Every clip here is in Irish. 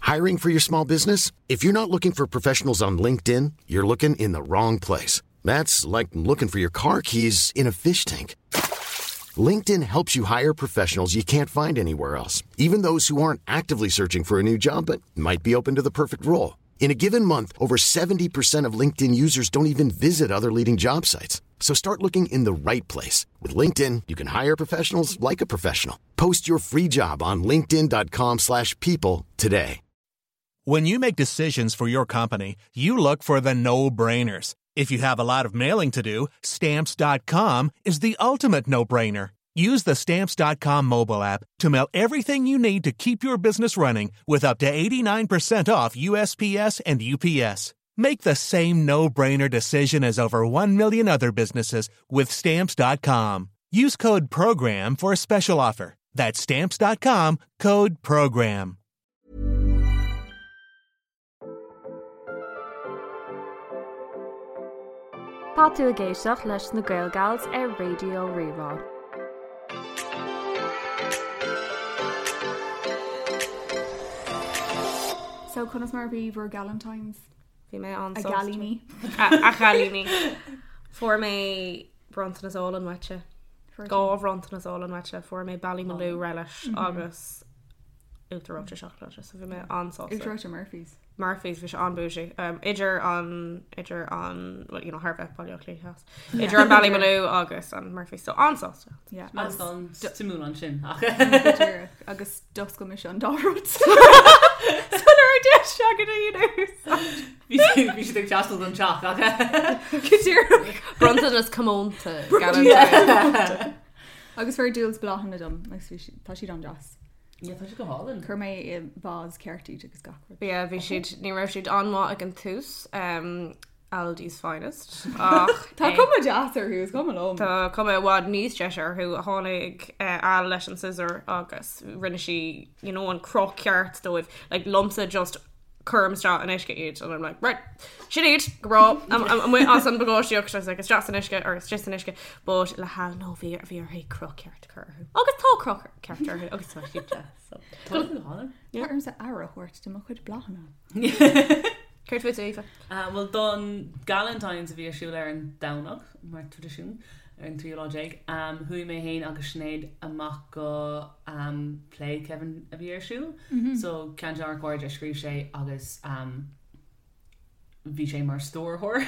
Hiring for your small business? If you're not looking for professionals on LinkedIn, you're looking in the wrong place. That's like looking for your car keys in a fish tank. LinkedIn helps you hire professionals you can't find anywhere else, even those who aren't actively searching for a new job but might be open to the perfect role. In a given month, over 70% of LinkedIn users don't even visit other leading job sites. So start looking in the right place. With LinkedIn, you can hire professionals like a professional. Post your free job on linkedin.com slash people today. When you make decisions for your company, you look for the no-brainers. If you have a lot of mailing to do, stamps.com is the ultimate no-brainer. Use the stamps.com mobile app to mail everything you need to keep your business running with up to 89% off USPS and UPS. Make the same no-brainer decision as over 1 million other businesses with stamps.com. Use code PROGRAM for a special offer. That's stamps.com, code PROGRAM. Tá tú ag éisteacht leis na Gael Gals ar Raidió Rí-Rá. So conas mar a bhí bhur Galentine's? Bhí mé an A gcailíní. A chailíní. Fuair mé bronntanas álainn uaitse. Dhá bhronntanas álainn uaitse. Fuair mé Ballymaloe relish agus uachtar reoite seacláide, so bhí mé an-sásta. Uachtar reoite Murphy's. Murphy's, bhí sé an-bougie. Um, idir an, idir an, well, you know, thar bheith Baile Átha Cliath Theas. Idir an Ballymaloe agus an Murphy's, so an-sásta. Yeah. Agus an suimiúil ansin ach. Go díreach. Agus d'oscail mise an dá rud. Sula raibh deis agat a dhéanamh. Bhí bhí siad ag teastáil don teach ach. Go díreach. Bronntanas comónta. Galentine. Agus fuair Jules bláthanna dom agus bhí si- tá siad an-deas. Yeah, tá siad go hálainn. Chuir mé i vase ceart iad agus gach rud. Yeah, bhí siad, ní raibh siad an-mhaith ag an tús, um, Aldi's finest, ach Tá cuma deas orthu, is cuma liom. Tá cuma i bhfad níos deise orthu. Tháinig eh, Al leis an scissor agus rinne sí, you know, an cruth ceart dóibh. Like, liomsa just cuirim isteach in uisce iad and I'm like, right, sin iad, go breá, amuigh as an bpacáistíocht, I was like, isteach san uisce or isteach san uisce, but le hAl no bhí bhí uirthi cruth ceart a chur orthu. Agus tá cruth ceart orthu agus tá siad deas. So. Tá siad go hálainn. Tá ormsa aire a thabhairt do mo chuid bláthanna. Céard fút, Aoife? Bhuel don Galentine's a bhí ar siúl ar an Domhnach, mar traidisiún, ar an tríú lá déag, chuaigh mé féin agus Sinéad amach go play Kevin a bhí ar siúl. So ceann de ár gcairde a scríobh sé agus bhí sé mar stiúrthóir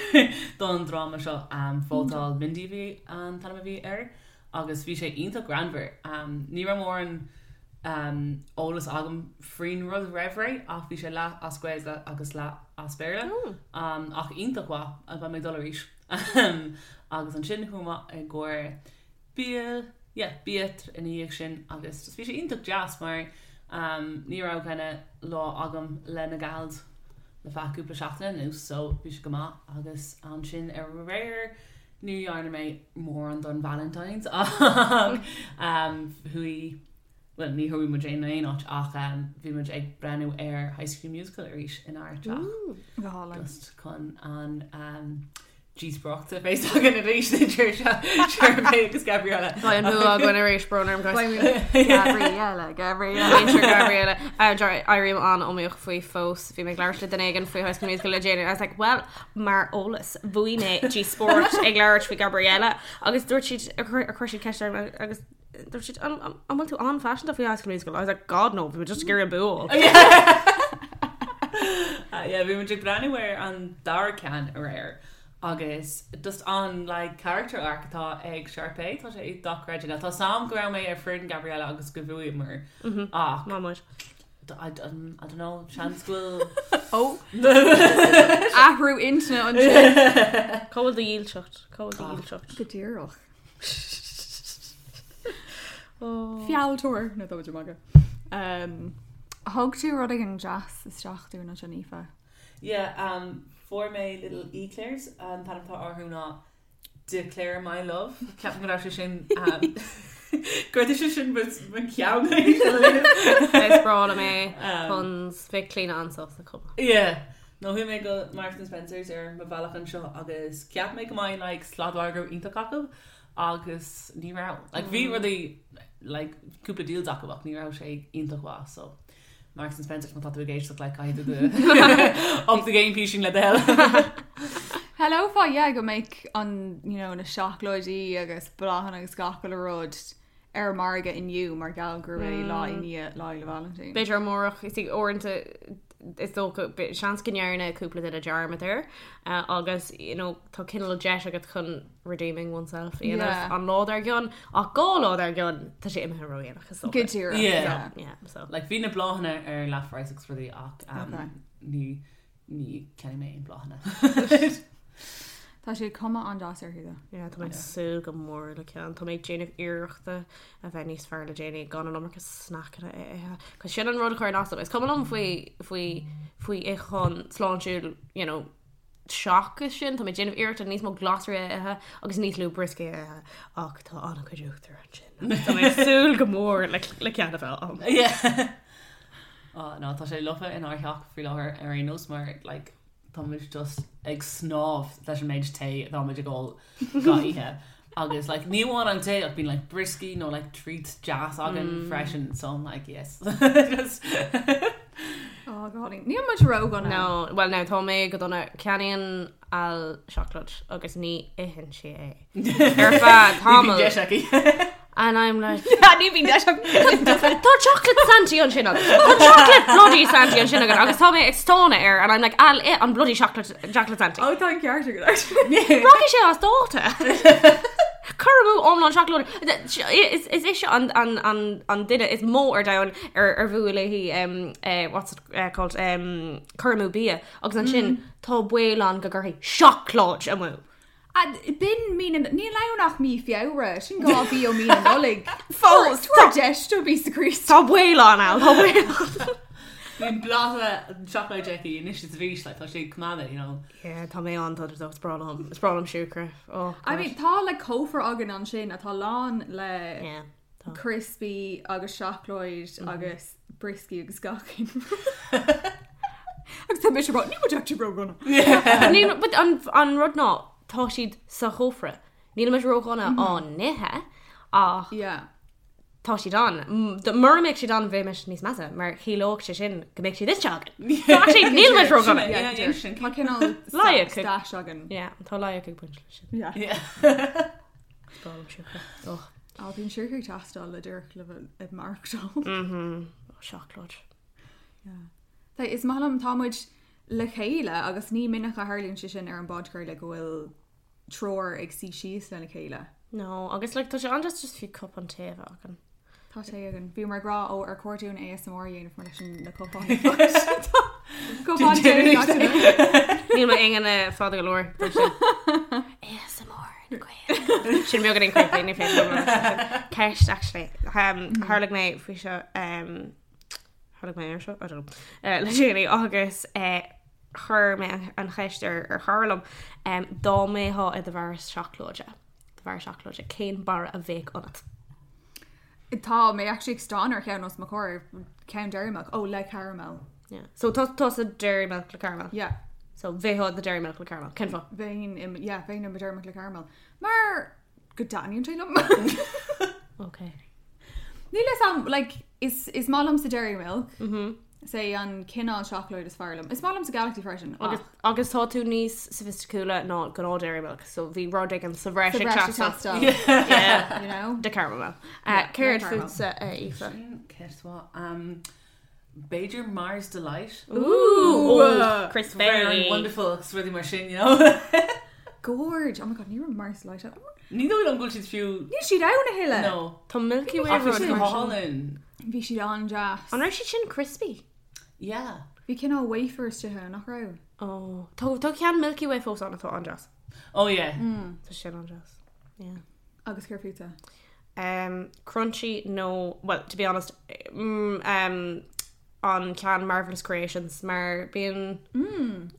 don dráma seo, Vótáil Mindy a bhí an t-ainm a bhí air. agus bhí sé iontach greannmhar. Ní raibh mórán eolas agam faoin rud roimh ré ach bhí sé leath as Gaeilge agus leath as Béarla. Ach iontach mhaith, beidh mé ag dul arís. Agus ansin chuaigh mé i gcomhair bia, yeah, bia ina dhiaidh sin agus just bhí sé iontach deas mar ní raibh kinda lá agam le na gals le feadh cúpla seachtaine anuas so bhí sé go maith agus ansin aréir Ní dhearna mé mórán don Valentine's ach chuaigh, bhuel ní chuaigh muid in aon áit ach bhí muid ag breathnú ar High School Musical arís inár dteach. Go hálainn. Just chun an díospóireacht a bheith againn arís idir Sharpay agus Gabriella. Beidh an bua againn arís, brón orm guys. Gabriella, Gabriella. Muintir Gabriella. Éirím an-iomaíoch faoi fós. Bhí mé ag labhairt le duine éigin faoi High School Musical le déanaí and I was like, well, Mar eolas, bhuaigh mé díospóireacht ag labhairt faoi Gabriella agus dúirt siad, chuir siad ceist orm agus dúirt siad, an bhfuil tú an-phaiseanta faoi High School Musical? I was like, God no, bhí mé just ag iarraidh an bua a fháil. Yeah, bhí muid ag breathnú ar an dara ceann aréir agus just an like character arc atá ag Sharpay, tá sé dochreidte. Now tá a fhios agam go raibh mé ar foireann Gabriella agus go bhuaíomar ach Maith muid. I don't know, seans go bhfuil Ó! Athrú intinne ansin. Cá bhfuil do dhílseacht? Cá bhfuil do dhílseacht? Go díreach. Fealltóir! No, tá muid ag magadh. Thug tú rud éigin deas isteach dúinn ansin, Aoife. Yeah, um, fuair mé little eclairs, an t-ainm atá orthu ná Declare my love. Ceapaim go raibh sé sin go raibh sé sin mo cheann. Is breá liom é puns bheadh Clíona an-sásta chomh maith. Yeah. No chuaigh mé go Marks and Spencer's ar mo bhealach anseo agus cheap mé go mbeidh like sladmhargadh iontach acu agus ní raibh. Like bhí rudaí like cúpla deals acu ach ní raibh sé iontach mhaith so. Marks and Spencer má tá tú ag éisteacht like caithfidh tú do up the game písín le do thoil. Shamhlófá yeah go mbeadh an you know na seacláidí agus bláthanna agus gach uile rud ar an margadh inniu mar gheall gurb é lá i ndiaidh Lá Fhéile Vailintín. B'fhéidir amárach is uaireanta is dócha seans go ndearna cúpla duine dearmad air agus you know tá cineál deis agat chun redeeming oneself a dhéanamh Yeah. an lá dár gcionn ach 2 lá dár gcionn tá sé imithe ródhéanach is dócha. Go díreach. Yeah. yeah. Yeah, so. Like bhí na bláthanna ar leathphraghas agus rudaí ach um, Okay. ní ní cheannaigh mé aon bláthanna. Tá sé cuma an-deas orthu though. Yeah, tá mé ag súil go mór le ceann. Tá mé ag déanamh iarrachta a bheith níos fearr le déanaí gan an iomarca snackanna a ithe. Cos sin an rud a chuireann as dom. Is cuma liom faoi faoi faoi itheachán sláintiúil, you know, seachas sin, tá mé ag déanamh iarrachta níos mó glasraí a ithe agus níos lú brioscaí a ithe ach tá an-chuid uachtar ansin. Agus tá mé ag súil go mór le le ceann a bheith ann. Yeah. Oh, no, tá sé lofa inár theach faoi láthair ar aon nós mar like, tá muid just ag snámh leis an méid tae atá muid ag ól gach oíche. Agus like, ní amháin an tae ach bíonn like, brioscaí nó like, treats deas againn freisin, so I'm like, yes. Just Oh God, níl muid ródhona. No, well now tá mé go dona ceannaíonn Al seacláid agus ní itheann sí é. Ar feadh Ní bhíonn tamaill. deis aici. And I'm like, Ní bhíonn deis aici. Tá chocolate Santy ansin agat. Tá chocolate bloody Santy ansin agat agus tá mé ag stánadh air and I'm like, Al, ith an bloody chocolate, chocolate Santy. Ó tá an ceart agat actually. Rachaidh sé as dáta. Cur amú iomlán seacláide. Is is ise an an an an duine is mó ar domhan ar ar bhuail léi um, eh, what's it eh, called um, cur amú bia agus ansin tá baol ann go gcuirfidh seacláid amú. B'in mí na níl ann ach mí Feabhra, sin 2 mhí ó mí na Nollag. Fós, Tabhair deis do phíosa Críost. Tá baol ann, Al, tá baol ann. Bíonn pláta seacláide aici anois is arís, like, tá sé ag coimeád, you know. Yeah, tá mé an dona is breá liom, is breá liom siúcra. Oh, I God. mean, tá like cófra againn ansin atá lán le Yeah, tá. crispy agus seacláid agus brioscaí agus gach aon Agus tá mise ag rá, níl muid actually ródhona. But níl, but an, an rud ná, tá siad sa chófra. Níl muid ródhona á n-ithe, ach Yeah. tá siad ann. Mura mbeadh siad ann bheimis níos measa, mar chiallódh sé sin go mbeadh siad ite againn. So actually níl muid ródhona. Yeah, Yeah, yeah, sin. Tá cineál Loighic ag- stash againn. Yeah, tá loighic ag baint leis sin. Yeah. Yeah. Is breá liom siúcra. Oh, Á, bíonn siúcra ag teastáil le díreach le bheith ag maireachtáil. oh, seacláid. Tá, is maith liom tá muid le chéile agus ní minic a tharlaíonn sé sin ar an bpodchraoladh go bhfuil triúr ag suí síos lena chéile. No, agus like, tá sé an-deas just fiú cupán tae a bheith againn. Tá sé againn. Bhí mar ag rá ó ar chóir dúinn ASMR a dhéanamh mar leis an na cupáin. Cupán tae gach duine. Níl m'ingne fada go leor don sin. ASMR na Gaeilge. Sin beagáinín creepy, ní féidir liom labhairt faoi sin. Ceist, actually. Um, tharlaigh mé faoi seo, um, tharlaigh mé ar seo? I don't know. Uh, le déanaí agus uh, chuir mé an, an cheist ar, ar chara liom um, dá mbeifeá i do bharra seacláide. Do bharra seacláide, cén barra a bheadh ionat? Tá mé actually ag stánadh ar cheann os mo chomhair, ceann Dairy Milk. Ó, le caramel. Yeah. So tá tá sa Dairy Milk le caramel. Yeah. So bheifeá do Dairy Milk le caramel. Cén fáth? Bheinn im, yeah, bheinn im Dairy Milk le caramel. Mar go dtaitníonn sé liom. Okay. Níl a fhios agam, like, is, is maith liomsa Dairy Milk. Mm -hmm. Is é an cineál seacláid is fearr liom. Is maith liomsa Galaxy freisin. Agus, ach agus tá tú níos soifisticiúla ná gnáth Dairy Milk, so bhí rud éigin sa bhreis sa ag bhreis ag teastáil. teastáil, Yeah. you know? De caramel. Uh, Yeah, Céard le caramel. fútsa, uh, Aoife? Sin ceist mhaith. Um, b'fhéidir Mars Delight. Ooh, oh, Chris Very Berry. wonderful agus rudaí mar sin, you know. Gorge. Oh my god, ní raibh Mars Delight ann. Ní dóigh liom go bhfuil siad fiú Níl siad ann a thuilleadh. No. Tá Milky Way Ach bhí rud siad go mar sin. hálainn. Bhí siad an-deas. An raibh siad sin crispy? Yeah. Bhí cineál wafer istigh ann, nach raibh? Oh, tá tá ceann Milky Way fós ann atá an-deas. Oh yeah. Tá sin an-deas. Yeah. Agus céard fútsa? Um, crunchy nó, well, to be honest, mm, um, an ceann Marvelous Creations mar bíonn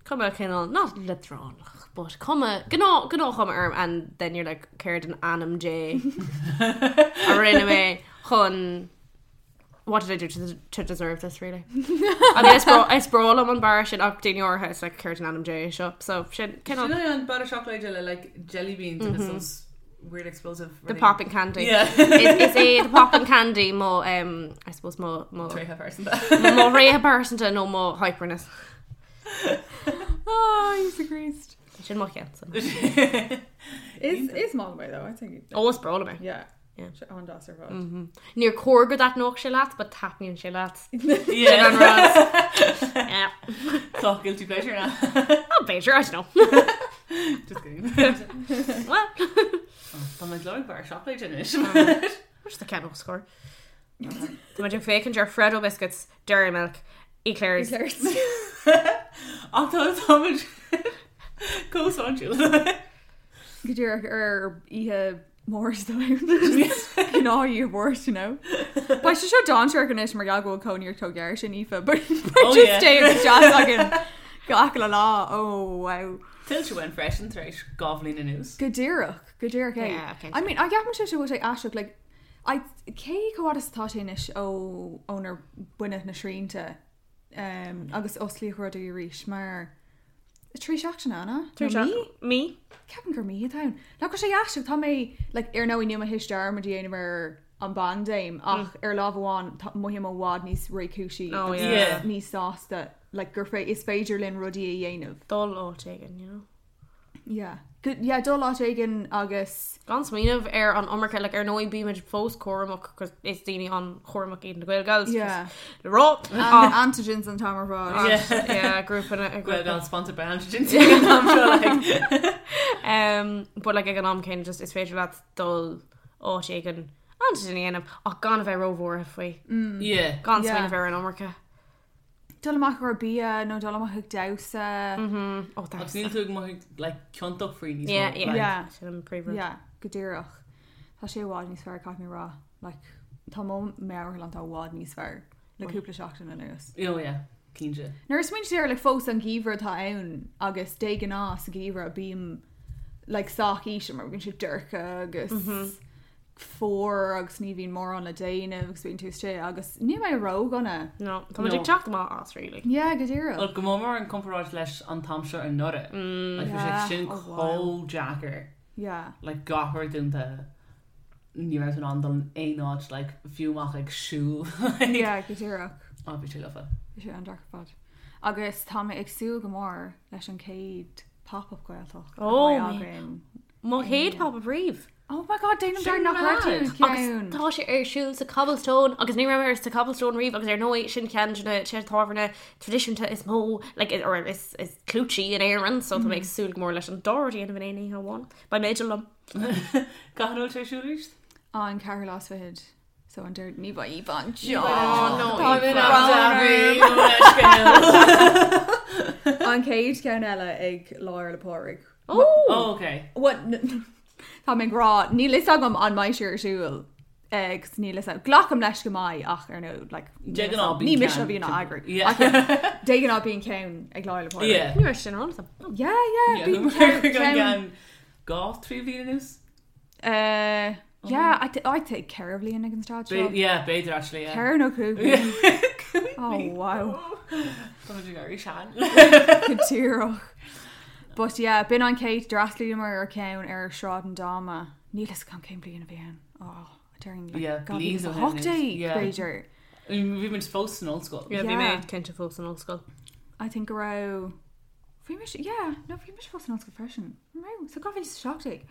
cuma cineál not leadránach, but cuma gnáth gnáthchuma orm and then you're like céard in ainm Dé a rinne mé chun what did I do to, to deserve this really? I mean, is breá is breá liom an barra sin ach daoine áirithe is like céard in ainm Dé seo so sin Sin cineál é an barra seacláide le like jelly beans agus those weird explosive The rudaí. popping candy. Yeah. Is é the popping candy mo um, I suppose mo mo Tréithe pearsanta. mo thréithe pearsanta nó mo hyperness. Oh, Íosa Críost. Sin mo cheann. Is maith liom é though, I think. Ó is breá liom é. Yeah. Yeah. Sé an-deas ar fad. Níor chóir go dtaitneodh sé leat, but taitníonn sé leat. Yeah. An rud. Yeah. Tá guilty pleasure now. Oh, b'fhéidir, I don't know. Just kidding. Well, Tá mé ag lorg barra seacláide anois. Where's the ceann score? Tá muid ag féachaint ar Freddo biscuits, Dairy Milk, Eclairs. Eclairs. Ach tá táimid chomh sláintiúil. Go díreach ar oíche Mháirt Gnáth Mháirt, you know. Beidh sé seo dainséarach anois mar gheall go bhfuil cónaí ort chomh gar sin Aoife, but Oh, just yeah. stay agus deas againn gach uile lá. Oh wow. Tuillte uainn freisin tar éis 2 bhliain anuas. Go díreach, go díreach é. Yeah, cinnte. I mean, I gceapann sé bhfuil sé aisteach, like, I, cé chomh fada is atá sé anois ó ónar baineadh na srianta um, agus osclaíodh rudaí arís mar 3 seachtaine an ea? Nó mí? Mí? Ceapaim gur mí atá ann. Nach bhfuil sé aisteach, tá mé like, ar ndóigh níl mé théis dearmad a dhéanamh ar an bpaindéim ach ar lámh amháin tá mothaím i bhfad níos réchúisí Oh, agus yeah. Yeah. níos sásta like, gur fé is féidir linn rudaí a dhéanamh. Dul áit éigin, you know. Yeah. Good, yeah, dul áit éigin agus Gan smaoineamh ar an iomarca, like, ar ndóigh bímid fós cúramach cos is daoine an-chúramach iad na Gaelgals. Yeah. Le rá. and antigens an t-am ar fad. Yeah. Yeah, grúpa na- Gael grúpa. Gal sponsored by Antigens ag an am seo, like. Um, but like ag an am céanna just is féidir leat dul áit éigin antigen a dhéanamh ach gan a bheith róbhuartha faoi. Yeah. Gan Yeah. smaoineamh ar an iomarca. Dul amach ar bia nó dul amach ag damhsa. Oh, Agus that's níl tú ag mothú like, ciontach faoi níos Yeah, mó, yeah. like. Yeah. Sin an príomhrud. Yeah, go díreach. Tá sé i bhfad níos fearr caithfidh mé a rá. Like, tá mo meabhairshláinte i bhfad níos fearr le cúpla seachtain anuas. Oh yeah, cinnte. Nuair a smaoiníonn tú air like, fós an geimhreadh atá ann agus de ghnáth sa gheimhreadh bím like, sách íseal mar bíonn sé dorcha agus fuar agus ní bhíonn mórán le déanamh agus bíonn tú istigh agus níl mé ródhona. No, tá muid No. ag teacht amach as really. Yeah, go díreach. Well, go mór mór in comparáid leis an t-am seo anuraidh. Like, bhí sé Yeah. sin Oh, wow. chomh deacair. Yeah. Like, gach rud dúnta. Ní raibh tú in ann dul in aon áit, like, fiú amach ag siúl. Like, Yeah, go díreach. Oh, bhí sé lofa. Bhí sé an-deacair ar fad. Agus tá mé ag súil go mór leis an chéad pop-up Gaeltacht. a Oh, bheidh my- againn. Mo chéad pop-up riamh. Oh my god, déanaim Sin dearmad nach raibh tú mad. i Agus gceann. tá sé ar siúl sa Cobblestone agus ní raibh mé sa Cobblestone riamh agus ar ndóigh sin ceann de na tithe tábhairne traidisiúnta is mó like, or is, is clúití in Éirinn, so tá mé ag súil go mór leis an dá rud a dhéanamh in aon oíche amháin. Beidh mé liom. Cathain a bhfuil sé ar siúl arís? An ceathrú lá is fichead. So an deir ní bheidh Aoife anseo. Oh, no, Tá Aoife. brón An orm. An chéad cheann eile ag Lá Fhéile Pádraig. Oh! Oh, okay. What? Tá mé ag rá, níl fhios agam an mbeidh sé ar siúl. Agus níl fhios agam. Glacaim leis go mbeidh ach ar ndóigh, like, De ghnáth ní bíonn mise a ceann. bhíonn á eagrú. Yeah. Ach, yeah, De ghnáth bíonn ceann ag Lá Fhéile Pádraig. Yeah. Ní raibh sin ar eolas agam. Yeah, yeah, Yeah, bíonn ceann ceann. ceann dhá trí bhliain anuas? Yeah, I think ceithre bhliain ag an staid seo. Yeah, b'fhéidir actually, yeah. Ceithre nó cúig bliain. Oh, wow. Tá muid ag éirí sean. Go díreach. But yeah, b'in an chéad d'fhreastlaíomar ar ceann ar Sráid an Dáma. Níl fhios agam cén bliain a bhí ann. Oh, during like, Yeah, God, bliain ó shin 2018, anois. Yeah. b'fhéidir. Bhí muid fós san ollscoil. Yeah, bhí Yeah. mé cinnte fós san ollscoil. I think go raibh bhí mise yeah, no bhí mise fós san ollscoil freisin. An raibh? So 2017.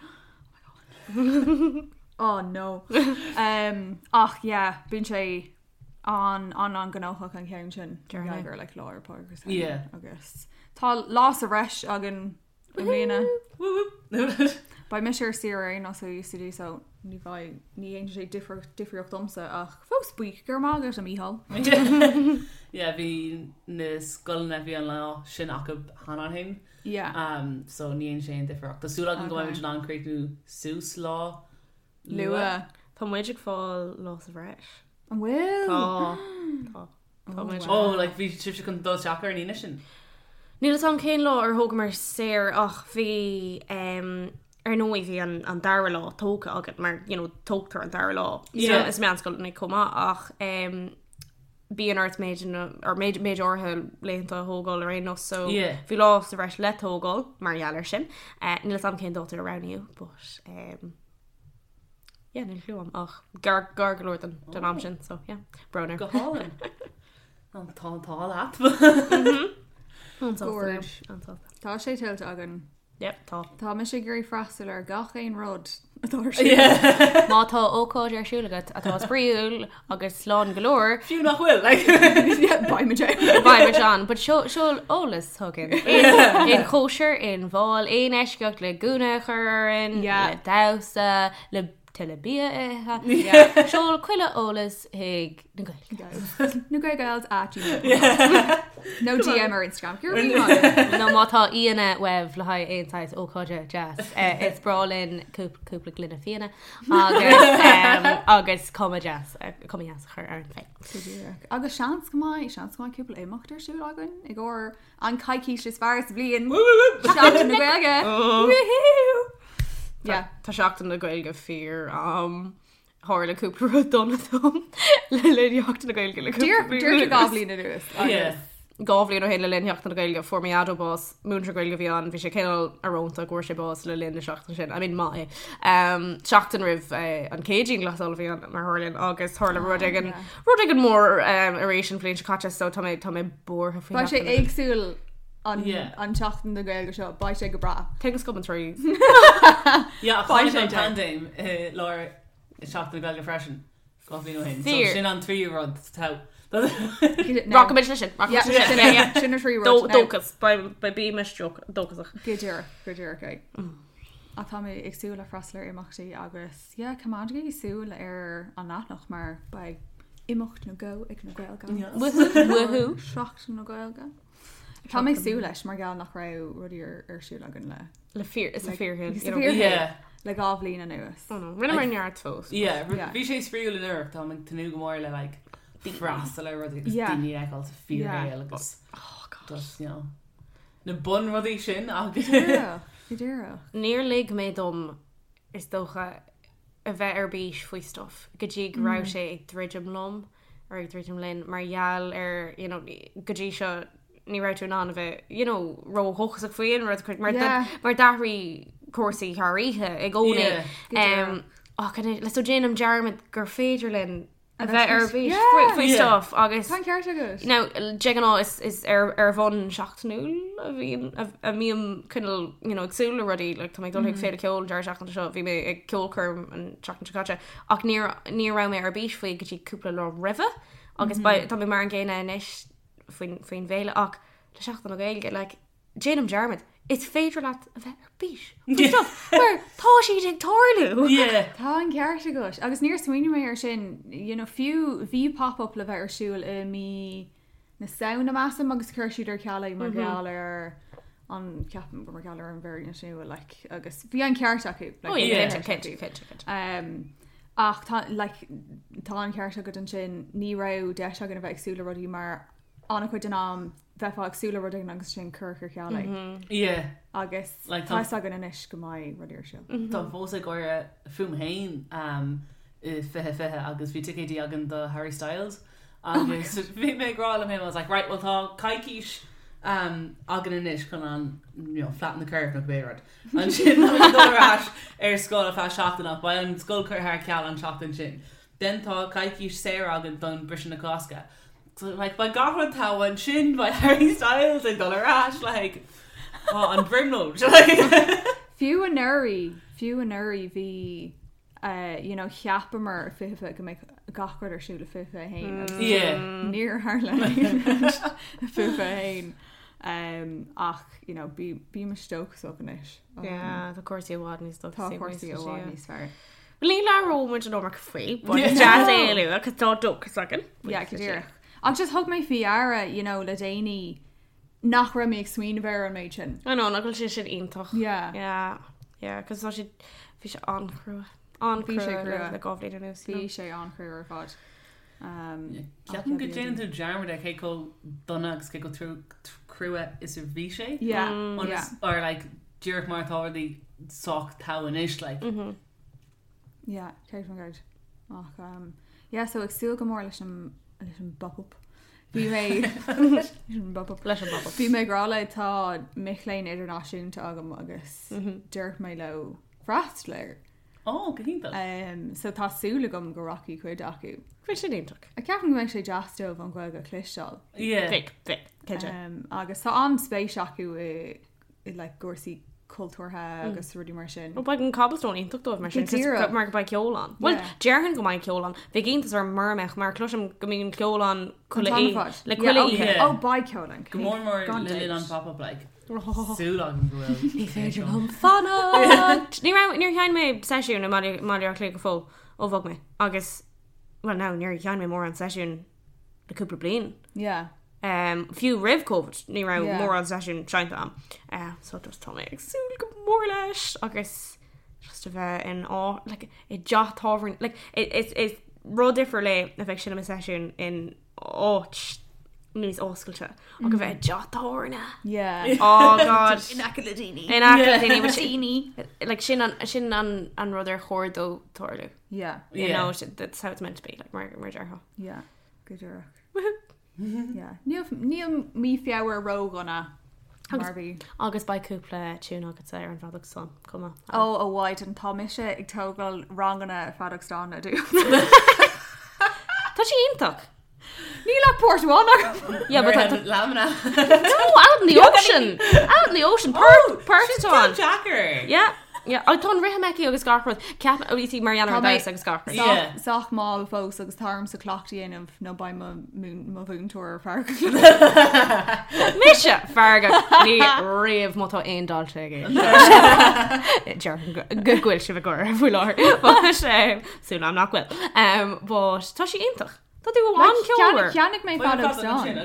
Oh my god. Oh no. Um, ach yeah, bíonn sé an an an gnóthach an ceann sin. Dearna. Gur like lá Fhéile Pádraig agus Yeah. agus tá lá sa bhreis againn i mbliana. Woo woo. Beidh mise ar saoire ar nós UCD so ní bheidh ní dhéanfaidh sé difríocht difríocht domsa ach fós buíoch go raibh maith agat a Mícheál. Yeah, bhí na scoileanna bhí an lá sin acu cheana féin. Yeah. So ní dhéanann sé aon difríocht. Tá súil agam go mbeidh muid in ann críochnú suas lá Luath. Tá muid ag fáil lá sa bhreis. An bhfuil? Tá. Tá. Tá muid. Oh, like bhí sibhse chun dul isteach ar an Aoine sin. Níl fhios agam cén lá ar thógamar saor ach bhí um, ar ndóigh bhí an, an dara lá tógtha agat mar you know, tógtar an dara lá Yeah. is meánscoileanna chomh maith ach um, bíonn ort méid or méid méid áirithe laethanta a thógáil ar aon nós so Yeah. bhí lá sa bhreis le tógáil mar gheall air sin. Uh, níl fhios agam cén dáta a roghnaíodh, but um, Yeah, níl clue agam ach gar gar go leor den den am sin, so yeah, brón air. Go hálainn. An tá an t-ádh leat. An-sásta Gorge. An-sásta. Tá sé tuillte againn. Yep, tá. Tá mise ag iarraidh freastal ar gach aon rud atá ar siúl. Má tá ócáid ar siúl agat atá spraíúil agus slán go leor, Fiú nach bhfuil, like. Yeah, beidh muid ann. Beidh muid ann, but seo seol eolas chugainn. Aon chóisir, aon bhál, aon eisceacht le gúna a chur orainn, Yeah. le damhsa, le tuilleadh bia a ithe. Seol chuile eolas chuig na Gaeil. Na Gaelgals at gmail. Nó DM ar Instagram. Go raibh míle maith agat. Nó má tá aíonna uaibh le haghaidh aon saghas ócáide deas, eh, is breá linn cúpla gloine fíona agus, em, agus cuma deas, eh, cuma dheas a chur orainn féin. Go díreach. Agus seans go mbeidh, seans go mbeidh cúpla imeacht ar siúl againn i gcomhair an coicís is fearr sa bhliain. Seachtain na Gaeilge. Woohoo! Yeah. Tá Seachtain na Gaeilge fíor am. Tharla cúpla rud dona dom le linn Sheachtain na Gaeilge le cúpla Díreach bliain díreach anuas. dhá bhliain anuas. Yeah. Dhá bhliain ó shin le linn Sheachtain na Gaeilge fuair mo dhaideo bás, múinteoir Gaeilge a bhí ann, bhí sé cineál íorónta go bhfuair sé bás le linn na seachtaine sin. I mean maith é. Um, seachtain roimh eh, an chéad dianghlasáil a bhí ann mar tharlaíonn agus tharla rud éigin yeah. rud éigin mór um, arís an bhliain seo caite so tá mé tá mé buartha faoi Beidh sé Sheachtain na Gaeilge. éagsúil an Yeah. an tseachtain na Gaeilge seo, beidh sé go breá. Things come in threes. Yeah, ach Beidh tháinig sé an dead. paindéim i lár Seachtain na Gaeilge freisin. Dhá bhliain ó shin. So Fíor. sin an tríú rud tá. Rachaimid leis sin. Yeah, Rachaimid leis sin. sin Yeah, yeah. sin na trí rud. Now, Dóchas Beidh bímis dóchasach. Go díreach, go díreach é. Ach tá mé ag súil le freastal ar imeachtaí agus yeah, coimeádaigí súil ar an leathanach mar beidh imeacht nó dhó ag na Gaeilge. Woohoo. Seachtain na Gaeilge. Tá mé ag súil leis mar gheall nach raibh rudaí ar ar siúl againn le Le fíor is a fíorthu. Is a fíor- Yeah. le dhá bhliain anuas. Rinneamar neart fós. Yeah, Yeah. bhí sé spraíúil anuraidh tá ag tnúth go mór le like freastal ar rudaí agus Yeah. daoine a fheiceáil sa fíorshaol agus Oh God. just, you know, na bunrudaí sin agus Díreach, go díreach. Níor lig mé dom is dócha a bheith ar bís faoi stuff go dtí go raibh sé ag druidim liom ar ag druidim linn mar gheall ar you know, go dtí seo ní raibh tú in ann a bheith you know, ródhóchasach faoi aon rud mar Yeah. mar d'athraigh cúrsaí thar oíche i gcónaí. Yeah. Go díreach. Ach le so déanaim dearmad gur féidir linn a A bheith ar bheith bís Yeah. faoi faoi Yeah. stuff agus Tá an ceart agat. Now, de ghnáth is, is ar, ar bhonn seachtainiúil a bhíonn a, a mbím cineál you know, ag súil le rudaí like, tá mé ag dul chuig féile ceoil an deireadh seachtaine seo bhí mé ag ceolchoirm an tseachtain seo caite ach níor ní raibh mé ar bís faoi go dtí cúpla lá roimhe agus mm -hmm. tá mé mar an gcéanna anois faoin faoin bhféile ach le Seachtain na Gaeilge like, déanaim dearmad is féidir leat a bheith ar bís faoi stuff mar tá siad ag tarlú. Yeah. Tá an ceart agat agus níor smaoinigh mé ar sin you know, fiú bhí pop-up le bheith ar siúl i mí na Samhna measaim agus chuir siad ar ceal é mar gheall ar an ceapaim gur mar gheall ar an variant nua like, agus bhí an ceart acu like, Oh, bhí yeah, an cinnte, ceart cinnte, acu. cinnte, cinnte. Um, ach tá like, tá an ceart agat ansin ní raibh deis againn a bheith ag súil le rudaí mar an-chuid den am bheifeá ag súil le rud éigin agus sin cur ar ceal é. Yeah. agus Like, tá tá- a fhios againn anois go mbeidh rudaí ar siúl. Tá fós ag gáire fúm féin um, i 2020 agus bhí ticéidí againn do Harry Styles agus bhí mé ag rá liom féin, I was like, right, well tá coicís um, againn anois chun an you know, flatten the curve nó cibé rud. Ansin tá mé ag dul ar ais ar scoil ar feadh seachtain ach beidh an scoil curtha ar ceal an seachtain sin. Then tá coicís saor againn don briseadh na Cásca. So, like, beidh gach rud togha ansin beidh Harry Styles ag dul ar ais like, oh, an bhrionglóid. Like, Fiú anuraidh, fiú anuraidh bhí uh, you know, cheapamar i 2020 go mbeadh gach rud ar siúl i 2021 agus yeah. níor tharla aon rud i 2021. Um, ach you know, bí bímis dóchasach anois. Um, Yeah, tá cúrsaí i bhfad níos Tá dóchasaí cúrsaí i bhfad níos fearr. Ní labhróidh muid an iomarca faoi, but is deas é a lua, cos tá dóchas againn. Yeah, go díreach. Ach just thug mé faoi deara, you know, le déanaí nach raibh mé ag smaoineamh ar an méid sin. I know, nach bhfuil sé sin iontach. Yeah. Yeah, yeah, cos tá sé bhí sé an-chrua. An-chrua Bhí sé crua. le dhá bhliain anuas. you Bhí know. sé an-chrua ar fad. Um, Ceapaim go déanann tú dearmad ar cé chomh dona agus cé chomh crua is a bhí sé. Yeah, Ionas- yeah. Or like díreach mar tá rudaí sách togha anois like. Yeah, 100%. Ach, um, yeah, so ag súil go mór leis an leis an bop-up. Bhí mé leis an bop-up. Leis an bop-up. Bhí mé ag rá le tá mic léinn idirnáisiúnta agam agus dúirt mé leo freastal air. Ó, go hiontach. So tá súil agam go rachaidh cuid acu. Bheadh sin iontach. Ceapaim go mbeidh sé deas dóibh an Ghaeilge a chloisteáil. Yeah. Bheadh, bheadh, cinnte. Agus tá an-spéis acu i i like cúrsaí cultúrtha agus rudaí mar sin. Ó beidh an Cobblestone iontach dóibh mar sin Go díreach. mar go mbeidh ceol ann. Bhuel, Yeah. déarfainn go mbeidh ceol ann. Bheadh iontas orm mura mbeadh mar cloisim go mbíonn ceol ann An chuile t-am ar oíche. fad. Le Yeah, chuile okay. oíche. Yeah. Ó beidh ceol ann. Go mór mór Gan le linn an dabht. pop-up like. Súil agam go bhfuil. Ní féidir liom fanacht! Ní raibh, níor sheinn mé seisiún i mBaile mBaile Átha Cliath go fóill ó bhog mé agus, well no, níor sheinn mé mórán seisiún le cúpla bliain. Yeah. Um, fiú roimh Covid ní raibh Yeah. mórán seisiún seinnte agam. Uh, so just tá mé ag súil go mór leis agus just a bheith in á like, i dteach tábhairne like, is, is rud difriúil é a bheith ag seinm i seisiún in áit níos oscailte ach a bheith i dteach tábhairne. Yeah. Oh God. In aice le daoine. In aice le daoine, which- Like, sin an, sin an, an rud ar chóir dó tarlú. Yeah. You Yeah. know, that's how it's meant to be, like, mar, mar déarfá. Yeah. Go díreach. Yeah. Níl níl mí Feabhra ródhona mar bhí. Agus beidh cúpla tune agatsa ar an bhfeadóg stáin, chomh maith. Ó a Mhaighdean tá mise ag tógáil ranganna feadóg stáin a dú. Tá sé iontach. Níl ach port amháin agam. Yeah, but tá Lamna. No, out in the ocean. Out in the ocean. Port, port atá ann. Jacker. Yeah. Yeah, oh, tá an rithim aici agus gach rud. Ceap, oh, you see, Marianne Tá ar mé- damhsa agus gach rud. Yeah. Sách mall fós agus tá ormsa cleachtadh a dhéanamh nó beidh mo mhún- mo mhúinteoir feargach. Mise feargach ní riamh má tá aon dalta aige. Déarfainn go go bhfuil sibh ag gáire faoi láthair. But, súil agam nach bhfuil. Um, but tá sí iontach. Tá tú an-cheolmhar. Cheannaigh mé feadóg stáin.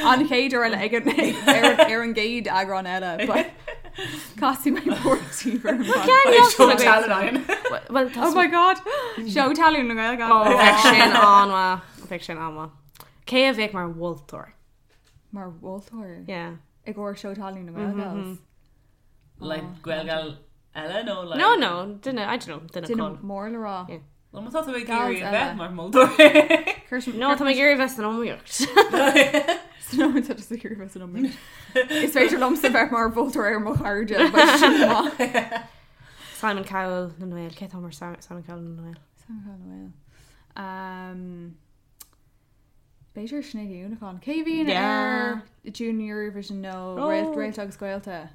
An chéad uair eile ag an ar ar an gcéad eagrán eile, but casfaidh mé port Well, tá Oh my god! Seó talún na Gaeilge. Oh, bheadh sin an-mhaith. Bheadh sin an-mhaith. Cé a bheadh mar mholtóir? Mar mholtóir. Yeah. I gcomhair seó talún na Gaeilge. Like Gaeilge eile nó like No, no, duine, I don't know, duine Duine cáil. mór le rá. Yeah. Well, má tá tú ag Gals iarraidh a bheith eile. mar mholtóir. No, tá mé ag iarraidh bheith san iomaíocht. No, tá just ag iarraidh bheith san iomaíocht. Is féidir liomsa bheith mar mholtóir ar mo chairde, but sin maith. Simon Cowell na nGael, cé tá mar Simon Cowell na nGael? Simon Cowell na nGael. Um, B'fhéidir Sinéad Ní Uallacháin. Cé bhíonn Yeah. ar Junior Eurovision nó Oh. Réalt Réalta agus Gaolta?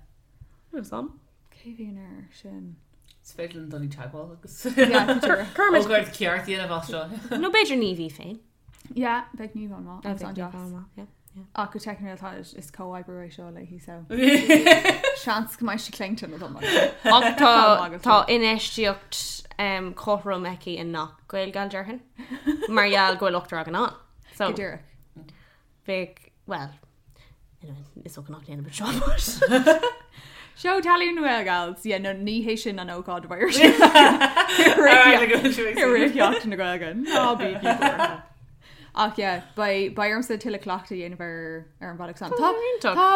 Sam? Cé bhíonn ar sin? Is féidir linn dul i dteagmháil agus Yeah, b'fhéidir. Kermit. Ócáid ceart a dhéanamh as seo. No b'fhéidir Niamh í féin. Yeah, beidh Niamh an-mhaith. Agus Bheadh an-deas. Niamh an-mhaith, yeah. Ach go teicniúil tá is comhoibriú é seo léi so. Seans go mbeidh sí claonta nó dom. Ach tá Tá tá infheistíocht um, cothrom aici i ngach Gaelgal déarfainn. Mar gheall go bhfuil ochtar againn ann. So Go díreach. bheadh well anyway, is dócha nach ndéanfaidh seo but Seó talún na Gaelgals, yeah, no, ní hé sin an ócáid a bheidh ar siúl. Rith Sheachtain na Gaeilge. Ná bígí buartha. Ach yeah, beidh beidh ormsa tuilleadh cleachtadh a dhéanamh ar ar an bhfeadóg stáin. Tá iontach. tá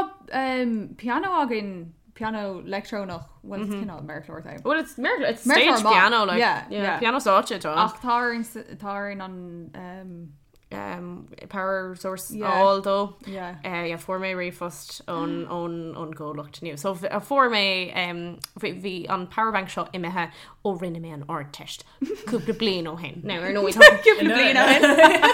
um, pianó againn, pianó leictreonach, well it's cineál méarchlár é. Well it's méarchlár, it's Méarchlár stage maith. piano like Yeah, yeah, yeah. piano stáitse atá ann. Ach tá orainn s- tá orainn an um, um, power source Yeah. a fháil dó. yeah. Uh, yeah, fuair mé ríomhphost ón ón ón gcomhlacht nua. So uh, fuair mé um, bhí bhí an powerbank seo imithe ó rinne mé an Ardteist cúpla bliain ó shin. Now ar ndóigh tá Cúpla bliain ó shin.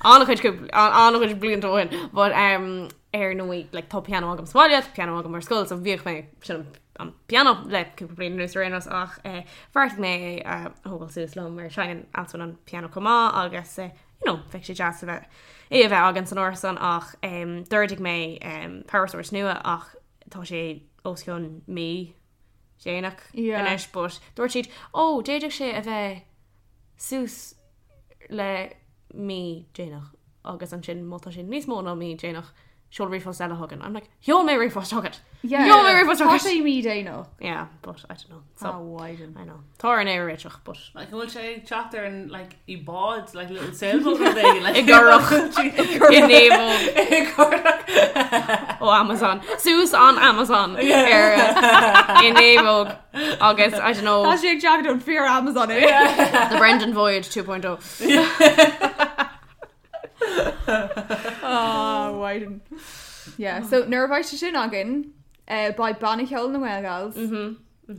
an-chuid cúpla- an-chuid blianta ó shin, but um, ar ndóigh like, tá pianó agam sa bhaile, tá pianó agam ar scoil, so bhíodh mé sin an pianó le cúpla bliain anuas ar aon nós ach eh, bheartaigh mé é a thógáil suas liom mar seinneann Alswyn an pianó chomh maith agus eh, you know, bheadh sé deas a bheith é a bheith againn san árasán ach um, d'ordaigh mé um, power source nua ach tá sé os cionn mí déanach Yeah. anois, but dúirt siad ó d'fhéadfadh sé a bheith suas le mí déanach agus ansin má tá sé níos mó ná mí déanach seol ríomhphost eile chugainn. I'm like, sheol mé ríomhphost chugat. Yeah. Sheol mé ríomhphost Tá chugat. sé mí déanach. Yeah, but I don't know. So, Ah, Mhaighdean. I know. Tá an é réiteach, but Like an bhfuil sé ag teacht ar an like i bád like little sailboat rud éigin, like I gcurach. i naomhóg I gcurach. ó Amazon. Suas an Amazon ar i naomhóg agus I don't know Tá sé ag teacht ón fíor Amazon é. the Brendan Voyage 2.0. Ah, Mhaighdean. Yeah, so nuair a bheidh sé sin againn, eh, beidh banna ceoil na nGaelgals.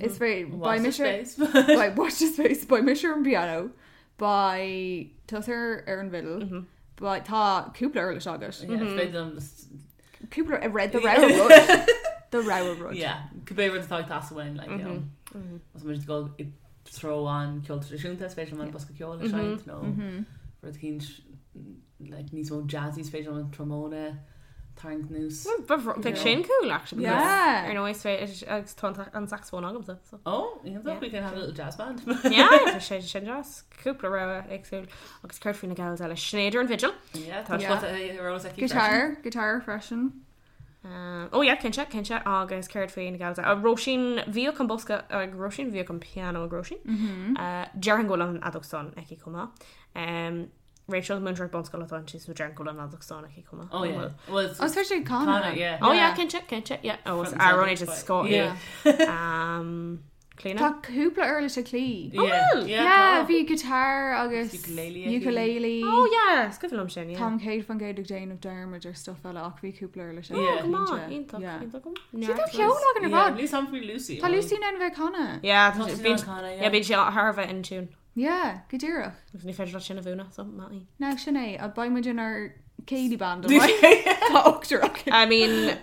Is féidir Watch beidh the mise space. beidh watch the space beidh mise ar an bpianó beidh tusa ar ar an bhfidil beidh tá cúpla uirlis agat Yeah, is féidir liom just cúpla a read the rogha rud do rogha rud Yeah, cibé rud atá ag teastáil uainn, like, you know. Más muid ag dul i dtreo an ceol traidisiúnta, is féidir liom an bosca ceoil a seinnt nó rud eicínt like, níos mó jazzy, is féidir liom an trombone a tharraingt anuas. Bheadh sin cool actually because Yeah. ar ndóigh is féidir agus tá an- an saxophone agamsa so. Oh, iontach, we can have a little jazz band. Yeah, tá sé sin deas cúpla rogha éagsúil agus céard faoi na gals eile Sinéad ar an bhfidil. Yeah, tá Yeah. spota ar eolas aici freisin. Guitar guitar freisin Ó yeah, cinnte, cinnte agus céard faoi na gals eile. Róisín bhíodh an bosca ag Róisín bhíodh an pianó ag Róisín. Déarfainn go bhfuil an fheadóg stáin aici chomh maith. Um, Rachel múinteoir bunscoile atá inti so déarfainn go bhfuil an fheadóg stáin aici chomh maith. Oh yeah. Well, it's, Oh, is féidir canadh Canadh, yeah. Oh yeah, cinnte, cinnte, yeah. Oh, Front and amhráin centre, is but- scoth. Yeah. Um, Clíona? Tá cúpla uirlis ag Clí. Yeah. bhfuil? Yeah, Yeah, tá. bhí guitar agus Ukulele aici. ukulele. Oh yeah, is cuimhin liom sin, yeah. Táim 100% ag déanamh dearmad ar stuff eile ach bhí cúpla uirlis aici, Yeah. Come on, cinnte. iontach, Yeah. iontach. Sí, tá ceol againn ar Yeah, fad. níl sam faoi Lucy. Tá Lucy in ann bheith ag canadh. Yeah, Tá sí bíonn in ann canadh, yeah, bíonn sí thar a bheith in tune. Yeah, go díreach. Agus ní féidir leat sin a mhúineadh, so maith í. Now sin é, a beidh muid inár céilí band an mbeidh? Tá ochtar againn. I mean,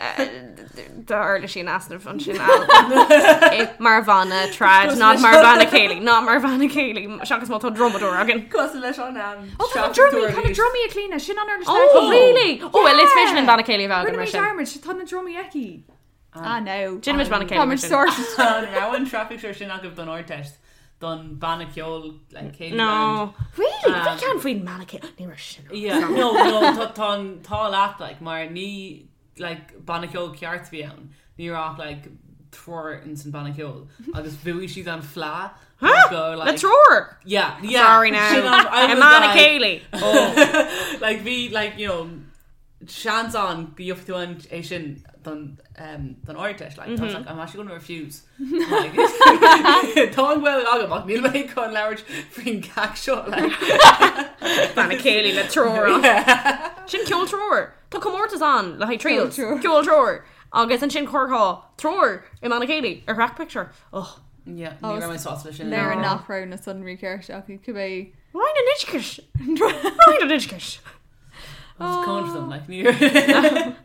tá uirlisí in easnamh ansin Al. Mar bhanna trad, not mar bhanna céilí, not mar bhanna céilí, seachas má tá drumadóir againn. Cosúil leis an am. Oh, tá na drumaí, tá na drumaí ag Clíona, sin an uirlis Oh, aici. really? Oh, well, is féidir linn banna céilí a bheith againn Rinne mar mé sin. dearmad, tá na drumaí aici. Ah, no. Déanfaimid banna céilí Tá mar muid sin. sorted. An raibh an traffic sure sin agaibh don Ardteist don banna ceoil like, céilí band. No. Really? Bhí ceann faoin mbanna céilí. Ní raibh sin. Yeah, no, no, tá tá an tá leat like mar ní like banna ceoil ceart a bhí ann. Ní raibh ach, like triúr in san banna ceoil agus bhuaigh siad an fleadh go Le like triúr! yeah, yeah. Sorry now. Sin an- I I was mbanna like- céilí. Oh. like bhí like you know seans ann go gheobhaidh tú an é sin don um, don Ardteist like, I was like I'm actually going to refuse like, tá an Ghaeilge agam ach níl mé chun labhairt faoin gceacht seo like Banna céilí le triúr. Sin ceol triúr. Tá comórtas ann le haghaidh trios. Ceol triúr. Ceol triúr. Agus ansin chuirfeá triúr i mbanna céilí ar thrack picture. Oh. yeah ní raibh mé sásta leis sin Léir nach raibh na sonraí ceart acu cibé. Roinn an Oideachais. Roinn an Oideachais. I was coming for them like ní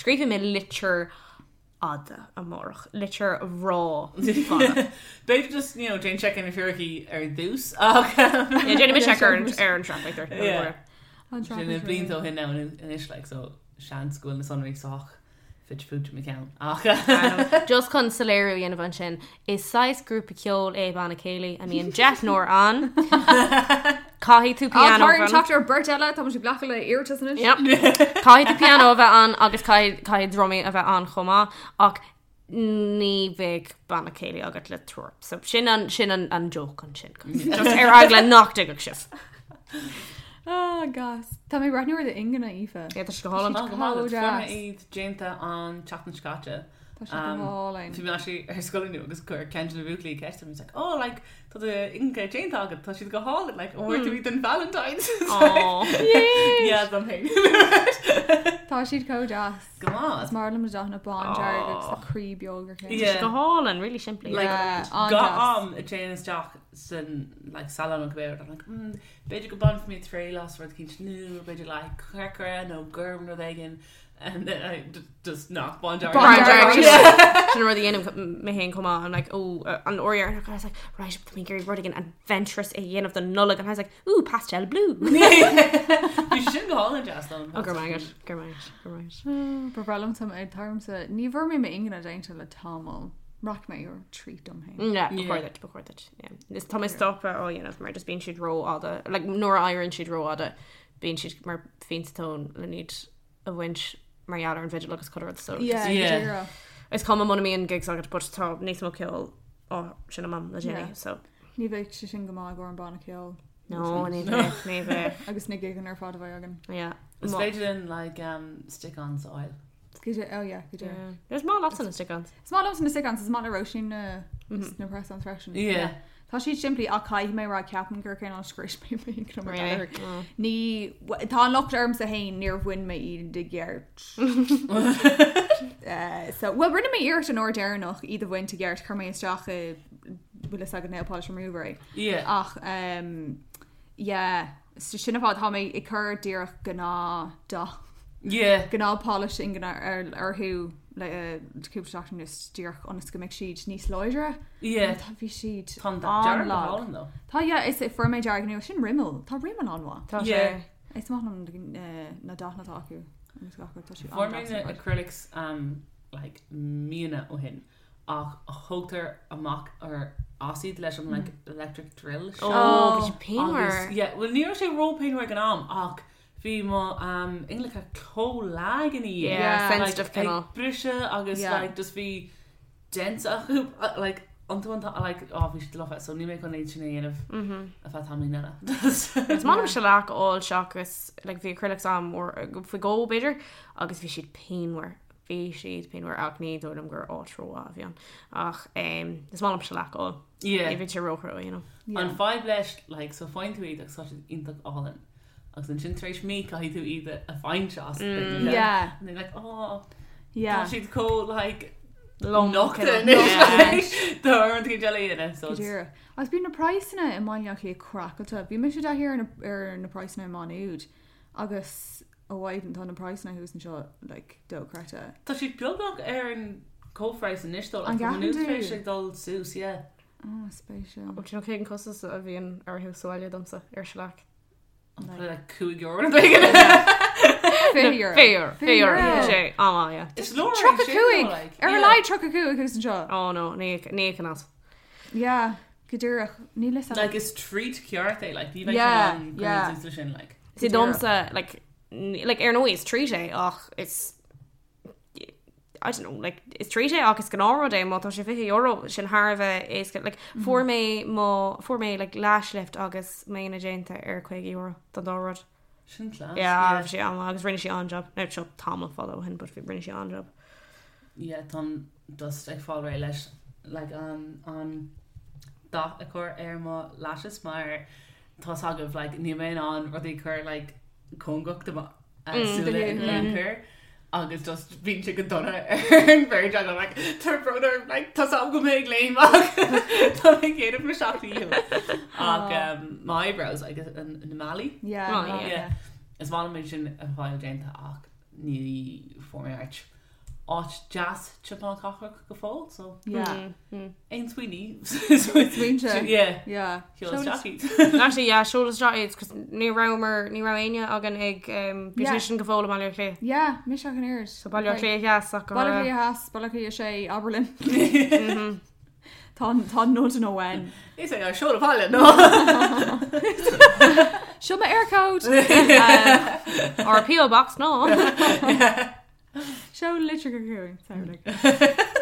Scríobhfaidh mé litir fhada amárach. Litir rá fada. B'fhéidir just you know déan check ar na fíricí ar dtús ach Yeah, déanfaidh mé check ar an ar an traffic there. Yeah. An sin traffic blianta ó shin now anois like so seans go bhfuil na sonraí sách fite fuaite i mo cheann ach Just chun soiléiriú a dhéanamh ansin, is saghas grúpa ceoil é banna céilí a mbíonn deichniúr ann. Caithfidh tú Á, pianó tá orainn bheith ann. teacht ar beirt eile, tá muid ag glacadh le iarratas anois. Yep. Caithfidh tú pianó a bheith ann agus caithfidh caithfidh drumaí a bheith ann chomh maith ach ní bheidh banna céilí agat le triúr. So sin an sin an an joke ansin. Just ar eagla nach dtuigfeadh sibh. Ah, gas. Tá mé ag breathnú ar d'ingne, Aoife. Yeah, tá sé go hálainn. Tá go maith agat. Comh Fuair mé deas. iad déanta an tseachtain seo caite. Tá sé go hálainn. Bhí mé actually ar scoil inniu agus chuir ceann de na buachaillí ceist orm, he's like, oh, like, tá d'ingne déanta agat, tá siad go hálainn, like, an bhfuair tú iad don Valentine's? Aw. Yeah, dom féin. Tá siad chomh deas. Go maith. Is maith liom na dathanna bándearg agus na croí beag ar chéile. Yeah. Go hálainn, really simplí. Like, Yeah, Gach an-deas. am a dtéim isteach san like, salon an cibé, I'm like, b'fhéidir go bainfidh mé triail as rud eicínt nua, b'fhéidir like, corcra nó gorm rud éigin, and then I just nach bándearg. Bándearg. Bándearg. Sin an rud a dhéanaim mé féin chomh maith. I'm like, oh, an uair dheireanach, I was like, right, tá mé ag iarraidh rud éigin adventurous a dhéanamh don Nollaig, and I was like, ooh, pastel blue. Bhí sé sin go hálainn deas dom. Oh, go raibh maith agat, go raibh maith agat, go raibh maith agat. Ba bhreá liom sam ag tarmsa. Ní bhfuair mé m'ingne déanta le tamall. Rachaidh mé ar treat dom féin. Yeah, Yeah. ba chóir duit, ba chóir duit, yeah. Is tá mé stoptha á dhéanamh mar just bíonn siad rófhada, like, nuair a éiríonn siad rófhada, bíonn siad mar phointe tóin le iad a bhaint mar gheall ar an bhfidil agus chuile rud, so just- Yeah, Yeah. go díreach. Is cuma muna mbíonn gigs agat, but tá níos mó ceoil á seinm agam le déanaí, Yeah. so. Ní bheidh sé sin go maith i gcomhair an banna ceoil. No, ní bheidh, ní bheidh. Agus na gigeanna ar fad a bheidh againn. Yeah. Is Má- féidir linn like, stick-ons a fháil. Go dé- oh yeah, go díreach. Yeah. Is maith leatsa na stick-ons. Is maith liomsa na stick-ons, is maith le Róisín na na press-ons freisin. Yeah. Tá siad simplí ach caithfidh mé a rá ceapaim gur cineál scrios mé mé go mar Really? deir. Ní tá an locht ormsa féin níor bhain mé iad i gceart. Eh, so well rinne mé iarracht an uair deireanach iad a bhaint i gceart chuir mé isteach i bhfuil fhios agat nail polish remover é. Yeah. Ach um, yeah, so sin an fáth tá mé ag cur díreach gnáth dath. Yeah. Gnáth polish ingne ar orthu le eh, cúpla seachtain anuas díreach ionas go mbeidh siad níos láidre. Yeah. Tá bhí siad Tá an dearg go an-lag. hálainn though. Tá yeah, is fuair mé dearg nua sin Rimmel. Tá Rimmel an-mhaith. Tá Yeah. sé. Is maith liom eh, na dathanna atá acu. Agus gach rud, tá siad Fuair mé an-deas na ar fad. acrylics um, like, míonna ó shin ach thógtar amach ar as iad leis an like, electric drill seo. Oh, bhí sé Agus, pianmhar. yeah, well ní raibh sé ró-pianmhar ag an am ach bhí mo um, ingleacha chomh lag ina dhiaidh. Yeah, Yeah. sensitive like, cineál. ag briseadh agus Yeah. like, just bhí dents acu uh, like, iontu an like, oh, bhí siad lofa, so níl mé chun iad sin a dhéanamh Mhm. ar feadh tamaillín eile. Is maith liom shellac a fháil seachas like, bhí acrylics agam faoi dhó b'fhéidir agus bhí siad pianmhar. Bhí siad pianmhar ach ní dóigh liom gur áit rómhaith a bhí ann. Ach um, is maith liom shellac a fháil. Yeah. Ní bhíonn sé róchrua, you know. An fadhb leis like, so faigheann tú iad agus tá siad iontach álainn. Agus ansin tar éis mí caithfidh tú iad a bhaint as. Yeah. And they're like, oh, Yeah. tá siad chomh like Lom nochta cineál. anois Yeah. like, do an cinn eile a dhéanamh, so Go it's- díreach. Agus bíonn na praghsanna i mBaile Átha Cliath craiceáilte. Bhí mise i dtaithí ar na, ar na praghsanna i Má Nuad agus ó mhaidin tá na praghsanna thuas anseo like, dochreidte. Tá siad beagnach ar an comhphraghas anois dó, An like, tá gceapann Má Nuad tú? tar éis ag dul suas, yeah. Oh, spéisiúil. Ó, do you know cén costas a bhíonn orthu sa bhaile domsa ar shellac? Probably like €5 nó b'éigean. €20. €20. €20. Sé, á, yeah. Is leor é Tríocha sin, cúig. though, like, Ar a yeah. laghad 35 thuas anseo. Oh no, ní ní an as. Yeah, go díreach. Níl fhios agam. Like is treat ceart é, like, ní bheidh Yeah, sé an yeah. suas leis sin, like. Sí Go díreach. domsa like like ar ndóigh is treat é ach is I don't know, like is treat é ach is gnáthrud é má tá sé €20 sin thar a bheith éasca like fuair mé mo fuair mé like lash lift agus m'ingne déanta ar €50 don dá rud. Sin class. Yeah, bhí sé an agus rinne sí an-job. Now seo tamall fada ó shin, but bhí rinne sí an-job. Yeah, táim just ag fáil réidh leis like an an dath a chur ar mo lashes mar tá's agaibh like níl mé in ann rudaí a chur like cóngarach do mo súile in aon chor agus just bíonn sé go dona ar an bheirt agam like tá brón orm like tá's agam go mbeidh ag léim ach tá mé ag déanamh mo sheacht ndícheall. Ach um, my eyebrows agus an na malaí. Yeah, Oh, yeah. yeah. Is maith liom é sin a fháil déanta ach ní fuair mé áit áit deas timpeall na cathrach go fóill, so Yeah. aon smaoiní. Smaointe. Yeah. Yeah. Sheol isteach iad. Actually, yeah, seol isteach iad, 'cause ní rabhamar, ní raibh éinne againn ag um, Yeah. beautician go fóill i mBaile Átha Cliath. Yeah, mise ach an oiread. So Baile Átha Cliath Theas ach go Baile Átha raibh- Cliath Theas, Baile Átha Cliath 6, abair linn. Tá tá nod nó when. Is é seol abhaile, no? Seo mo Eircode. Or PO box, no. Seo litir go chugainn, sorry, like.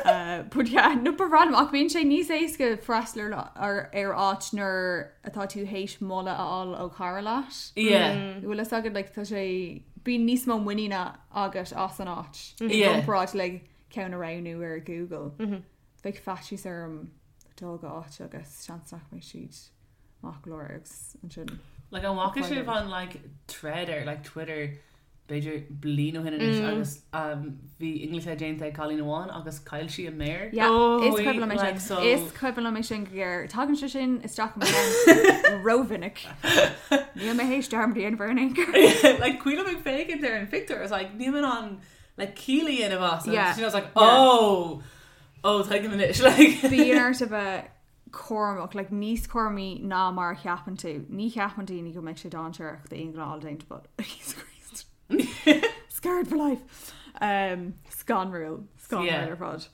Uh, but yeah, no ba random ach bíonn sé níos éasca freastal ar, ar, ar áit nuair atá tú théis moladh a fháil ó chara leat. Yeah. Bhfuil fhios agat like, tá sé bíonn níos mó muiníne agat as an áit. I Yeah. gcomparáid le ceann a roghnú ar Google. Bheadh faitíos orm dul go áit agus seans nach mbeidh siad maith go leor agus ansin. Like an bhfaca sibh an like thread ar like Twitter b'fhéidir bliain ó shin anois agus um, bhí ingleacha déanta ag cailín amháin agus chaill sí a méar. Yeah, Oh, is cuimhin liom é like, sin. so- Is cuimhin liom é sin go géar. Tagann sé sin isteach i mo cheann rómhinic. Níl mé théis dearmad a dhéanamh ar an aon like cuimhin ag féachaint ar an phictiúr is like níl mé in ann like ciall a dhéanamh as and Yeah. she was like Yeah. oh oh tuigim anois like Bíonn ort a bheith cúramach, like níos cúramaí ná mar a cheapann tú. Ní cheapann daoine go mbeidh sé dainséarach d'aon ghnáth déanta, but Jesus Christ. Scarred for life. Um, scanrúil. Scanrúil Yeah. ar fad.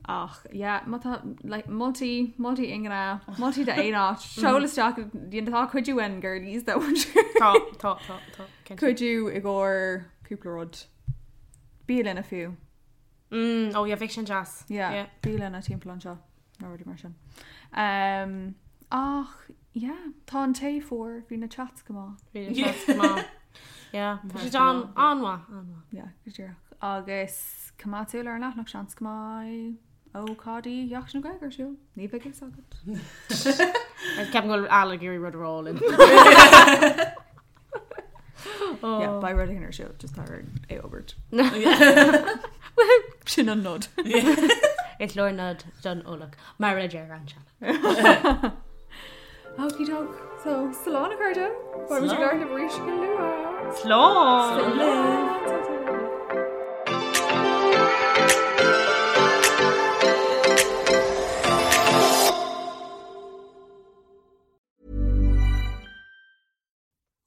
Ach, yeah, má tá, like, moltaí, moltaí ingne, moltaí d'aon áit, seol isteach, tá cuidiú uainn girlies though, I'm sure. Tá, tá, tá, tá. cinnte. Cuidiú i gcomhair cúpla rud. Bialanna fiú. Mm, oh yeah, bheadh sin deas. Yeah, Yeah. bialanna timpeall anseo nó rudaí mar sin. Um, ach, yeah, tá an tae fuar, bhí na chats go maith. Bhí na chats go maith. Yeah, bhí siad an-mhaith, an-mhaith. Yeah, go díreach. Agus coimeád súil ar an leathanach seans go mbeidh Ócáidí Sheachtain na Gaeilge ar siúl. Ní bheidh fhios agat. Ceapaim go bhfuil Al ag iarraidh rud a rá linn. Yeah, beidh rud éigin ar siúl, just tá orainn é a fhógairt. Sin an nod. Is leor nod don eolach, mar a deir an sean. Okie doke. So, slán a chairde. Beidh muid ag labhairt libh arís go luath. Slán! Slán!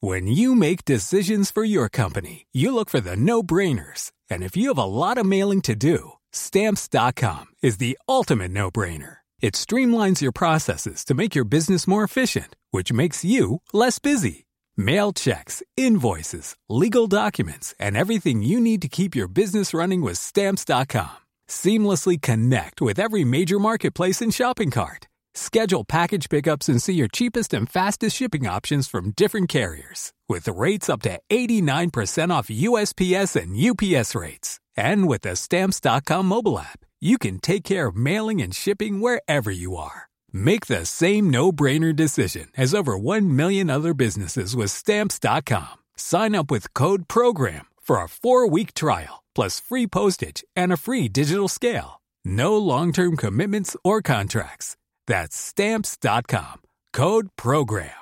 When you make decisions for your company, you look for the no-brainers. And if you have a lot of mailing to do, stamps.com is the ultimate no-brainer. It streamlines your processes to make your business more efficient, which makes you less busy. Mail checks, invoices, legal documents, and everything you need to keep your business running with stamps.com. Seamlessly connect with every major marketplace and shopping cart. Schedule package pickups and see your cheapest and fastest shipping options from different carriers. With rates up to 89% off USPS and UPS rates. And with the Stamps.com mobile app, you can take care of mailing and shipping wherever you are. Make the same no brainer decision as over 1 million other businesses with Stamps.com. Sign up with code PROGRAM for a four week trial, plus free postage and a free digital scale. No long term commitments or contracts. That's Stamps.com. Code PROGRAM.